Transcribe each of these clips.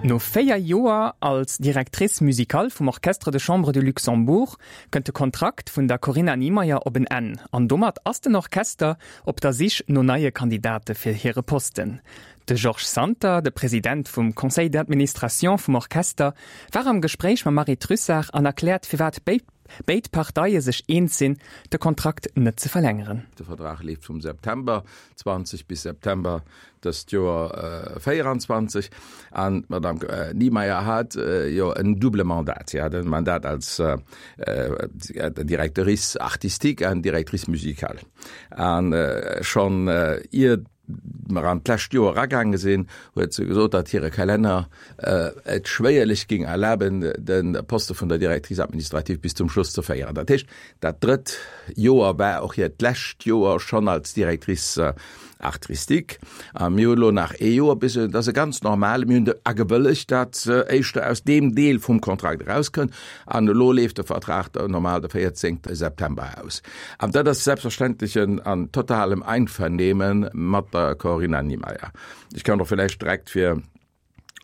No 4 Joer als Directrice musicale vum Orchestre de Chambre de Luxembourg kënnt de Kontrakt vun der Corinna Niemeyer op en Enn an domat ass den Orchester op der Sich no neie Kandidate fir hire Posten. De Georges Santer, de President vum Conseil d'administration vum Orchester, war am Gespréich mam Marie Trussart an erkläert firwat béid Parteie sech eens sinn, de Kontrakt net ze verlängeren. De Vertrag leeft vum September 20 bis September dëst Joer 24 an d'Madame Niemeyer hat jo en double Mandat. Si hat e Mandat als Directrice artistique an Directrice musicale. An schonn ier mer an d'lescht Joer eragaange sinn, huet se gesot, datt hire Kalenner et schwéierlech géing erlaben, de Poste vun der Directrice administrative bis zum Schluss ze féieren. Dat heescht, dat drëtt Joer war och hiert lescht Joer schonn als Directrice artistique. A mir hunn elo nach ee Joer bis, et ass e ganz normale, mir hunn agewëllegt, datt éischter aus deem Deel vum Kontrakt erauskënnt. An elo leeft de Vertrag normal de 14 September aus. An dat ass selbstverständlech an totalem Einvernehmen mat der Corinna Niemeyer. Ech kann och villäicht direkt fir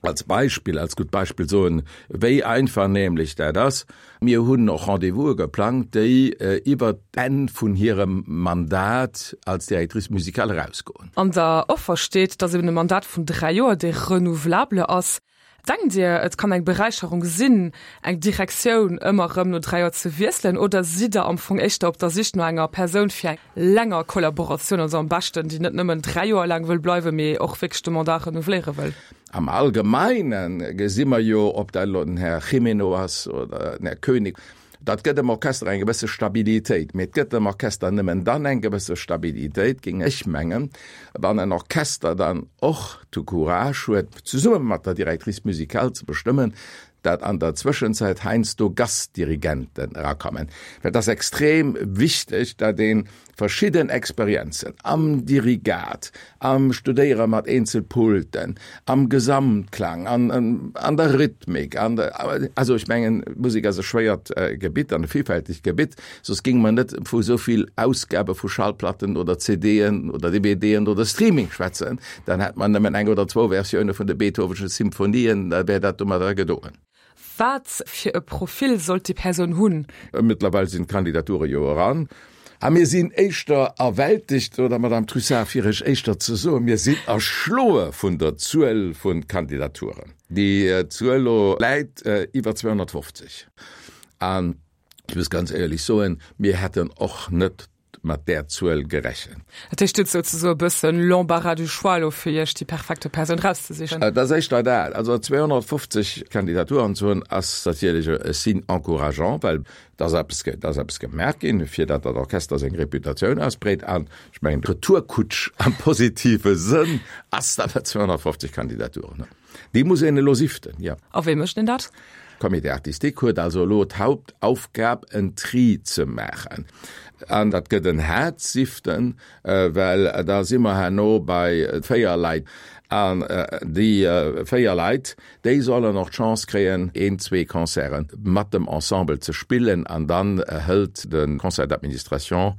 als Beispill, als gutt Beispill soen, wéi einvernehmlech dat ass. Mir hunn och Rendez-vouse geplangt, déi iwwert d'Enn vun hirem Mandat als Directrice musicale erausgoen. An der Offer steet, dass eben e Mandat vun 3 Joer, dee renouvelable ass. Denkt Dir, et kann eng Beräicherung sinn, eng Direktioun ëmmer erëm no 3 Joer ze wiesselen, oder sidd Der am Fong éischter op der Sich no enger Persoun fir eng länger Kollaboratioun, also am beschten, déi net nëmmen 3 Joer laang wëll bleiwen, mee och wierklech de Mandat renouveléiere wëll? Am Allgemeine gesi mer jo, ob dat elo den Här Jimeno ass oder den Här Koenig, dat gëtt dem Orchester eng gewësse Stabilitéit. Mee et gëtt dem Orchester nëmmen dann eng gewësse Stabilitéit, géing ech mengen, wann en Orchester dann och de Courage huet, zesumme mat der Directrice musicale ze bestëmmen, dat an der Zwëschenzäit heiansdo Gastdirigenten erakommen. Well et ass extrem wichteg, datt ee verschidden Experienzen am Dirigat, am Studéiere mat Eenzelpulten, am Gesamtklang, an an der Rhythmik, an der, also ech mengen, Musek ass e schwéiert Gebitt an e villfältegt Gebitt, soss géinge mer net vu esou vill Ausgabe vu Schallplatten oder CDen oder DVDen oder Streaming schwätzen, dann hätt mer nëmmen eng oder zwou Versioune vun de Beethovenschen Symphonien, da wär dat domadder gedoen. Wat fir e Profil sollt déi Persoun hunn? Mëttlerweil sinn d'Kandidature jo eran a mir sinn éischter erwältegt, oder Madame Trussart, fir ech éischter ze soen, mir sinn erschloe vun der Zuel vu Kandidaturen. Déi Zuel elo läit iwwer 250 an ech muss ganz éierlech soen, mir hätten och net mat där Zuel gerechent. Dat heescht, Dir hutt souzesoe e bëssen l'embarras du choix elo fir Iech déi perfekte Persoun erauszesichen? Et ass éischter dat. Also 250 Kandidaturen ze hunn, ass natierlech e Signe encourageant, well et ass eppes, et ass eppes gemaach ginn, fir datt dat Orchester seng Reputatioun ausbreet. An ech mengen, d'Retourkutsch am positive Sënn ass, datt mer 250 Kandidaturen hunn. Déi muss een elo siften, jo. A wéi mécht een dat? Comité artistique huet also elo d'Hauptaufgab, en Tri ze maachen. An dat gëtt en haart Siften, well da si mer herno bei 4 Leit. An déi 4 Leit, déi sollen och d'Chance kréien, een, zwee Concerte mat dem Ensemble ze spillen. An dann hëlt de Conseil d'administration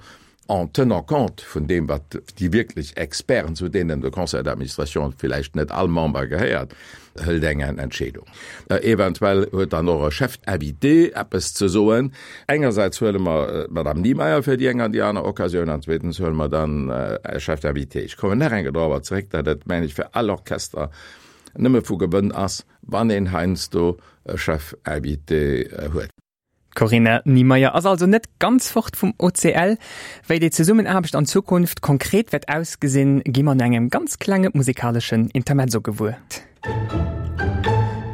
en tenant compte vun deem, wat déi wierklech Experten, zu deenen de Conseil d'administration villäicht net all Member gehéiert, hëlt eng Entscheedung. Eventuell huet dann och e Chef invité eppes ze soen. Engersäits huele mer d'Madame Niemeyer fir déi eng an déi aner Occasioun an zweetens huele mer dann e Chef d'invité. Ech kommen nach eng Kéier dorobber zeréck, datt et, mengen ech, fir all Orchester nëmme vu Gewënn ass, wann een heiansdo e Chef invité huet. D'Corinna Niemeyer ass also net ganz fort vum OCL. Wéi déi Zesummenaarbecht an Zukunft konkret wäert ausgesinn, gi mer no engem ganz klenge musekaleschen Intermezzo gewuer.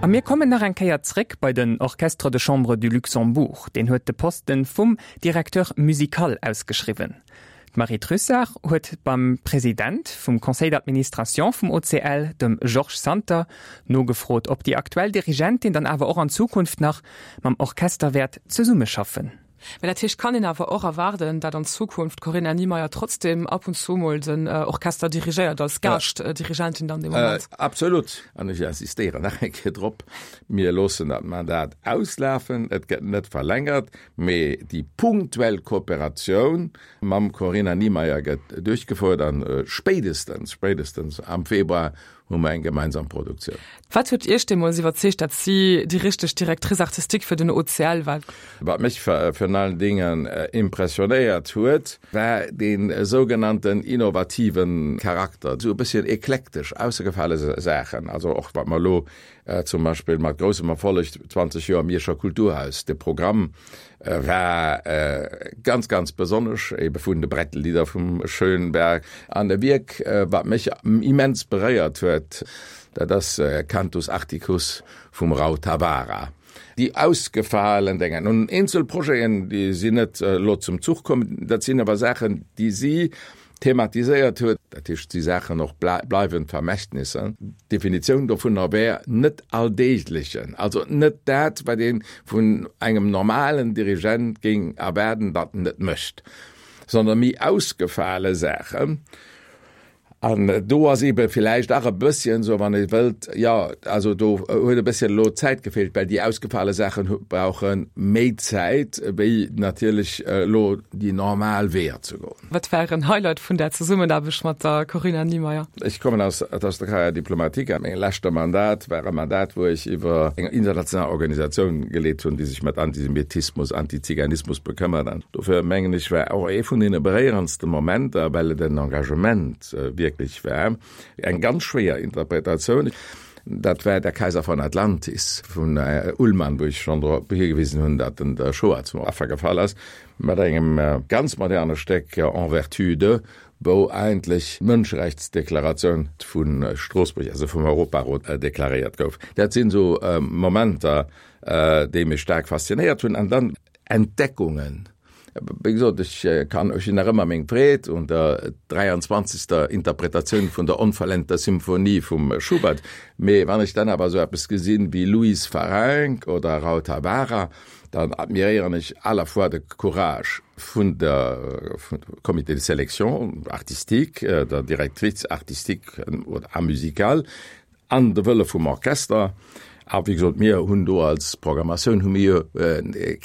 A mir kommen nach eng Kéier zréck bei den Orchestre de Chambre du Luxembourg. Deen huet de Posten vum Directeur musical ausgeschriwwen. D'Marie Trussart huet beim President vum Conseil d'administration vum OCL, dem Georges Santer, nogefrot, ob déi aktuell Dirigentin dann awer och an Zukunft nach mam Orchester wäert zesummeschaffen. Mä dat heescht, kann een awer och erwaarden, dat an Zukunft d'Corinna Niemeyer trotzdem ab und zu mol den Orchester dirigéiert, als Gaaschtdirigentin dann dee Moment? Absolut. An ech insistéieren nach eng Kéier drop, Mir loossen dat Mandat auslafen, et gëtt net verlängert. Mee déi punktuell Kooperatioun mam Corinna Niemeyer gëtt duerchgefouert an spéidestens, spéidestens am Februar. hu mer eng gemeinsam Produktioun. Wat huet Iech deemools iwwerzeegt, datt si déi richteg Directrice artistique fir den OCL war? Wat mech virun allen Dingen impressionéiert huet, war dee sougenannten innovative Charakter, esou e bësschen eklektesch, aussergefale Saachen. Also och wat mer elo zum Beispill mat groussem Erfolleg 20 Joer Mierscher Kulturhaus, de Programm war ganz, ganz besonnesch, ebe vun de Brettelieder vum Schönberg. An e Wierk, wat mech immens beréiert huet, dat ass Cantus Arcticus vum Rautavaara. Déi ausgefalen Dénger. Nun, eenzel Projeten, déi sinn net elo zum Zuch komm, dat sinn awer Saachen, déi si thematiséiert huet. Dat heescht, et si Saachen och bleiwend Vermächtnisser. D'Definitioun dovunner wär net alldeeglechen, also net dat, wat ee vun engem normalen Dirigent géing erwaarden, datt en et mécht, sondern méi ausgefale Saachen. An do ass eebe villäicht nach e bësschen esou, wann ee wëllt, jo, also do huet e bësschen elo d'Zäit gefeelt, well déi ausgefale Saachen brauche méi Zäit wéi natierlech elo déi normal Weeër ze goen. Wat war Ären Highlight vun der Zesummenaarbecht mat der Corinna Niemeyer? Ech kommen aus der Carrière diplomatique a meng leschte Mandat war e Mandat, wou ech iwwer eng international Organisatioun geleet hunn, déi sech mat Antisemitismus, Antiziganismus bekëmmert. An dofir mengen ech, war och ee vun deene beréierendste Momenter, well et en Engagement wierklech war, eng ganz schwéier Interpretatioun, dat war Der Kaiser von Atlantis vun Ullmann, wou ech schonn drop higewisen hunn, datt en der Shoah zum Affer gefall ass. Mat engem ganz moderne Stéck En vertu de, wou eigentlech d'Mënscherechtsdeklaratioun vu Stroossbuerg, also vum Europarot, deklaréiert gouf. Dat sinn esou Momenter, déi mech staark faszinéiert hunn. An dann Entdeckungen. Wéi gesot, ech kann, ech hunn nach ëmmer meng Freed un der 23. Interpretatioun vun der onvollendter Symphonie vum Schubert. Mee wann ech dann awer esou eppes gesinn wéi Louise Farrenc oder Rautavaara, Dann admiréieren ech à la fois de Courage vun der vum Comité de sélection artistique, der Directrice artistique a musicale an de Wëlle vum Orchester. A wéi gesot, mir hunn do als Programmatioun hu mir jo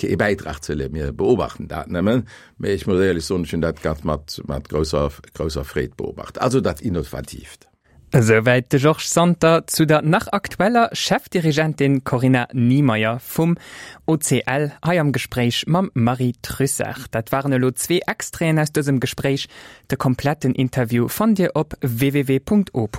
kee Bäitrag ze leeschten, mir beobachten dat nëmmen. Mee ech muss éierlech soen, ech hunn dat ganz mat mat grousser grousser Freed beobacht. Also dat Innovatiivt. Esouwäit de Georges Santer zu der nach aktueller Chefdirigentin Corinna Niemeyer vum OCL hei am Gespréich mam Marie Trussart. Dat waren elo zwee Extraiten aus dësem Gespréich. De kompletten Interview fannt Dir op www.opus.radio.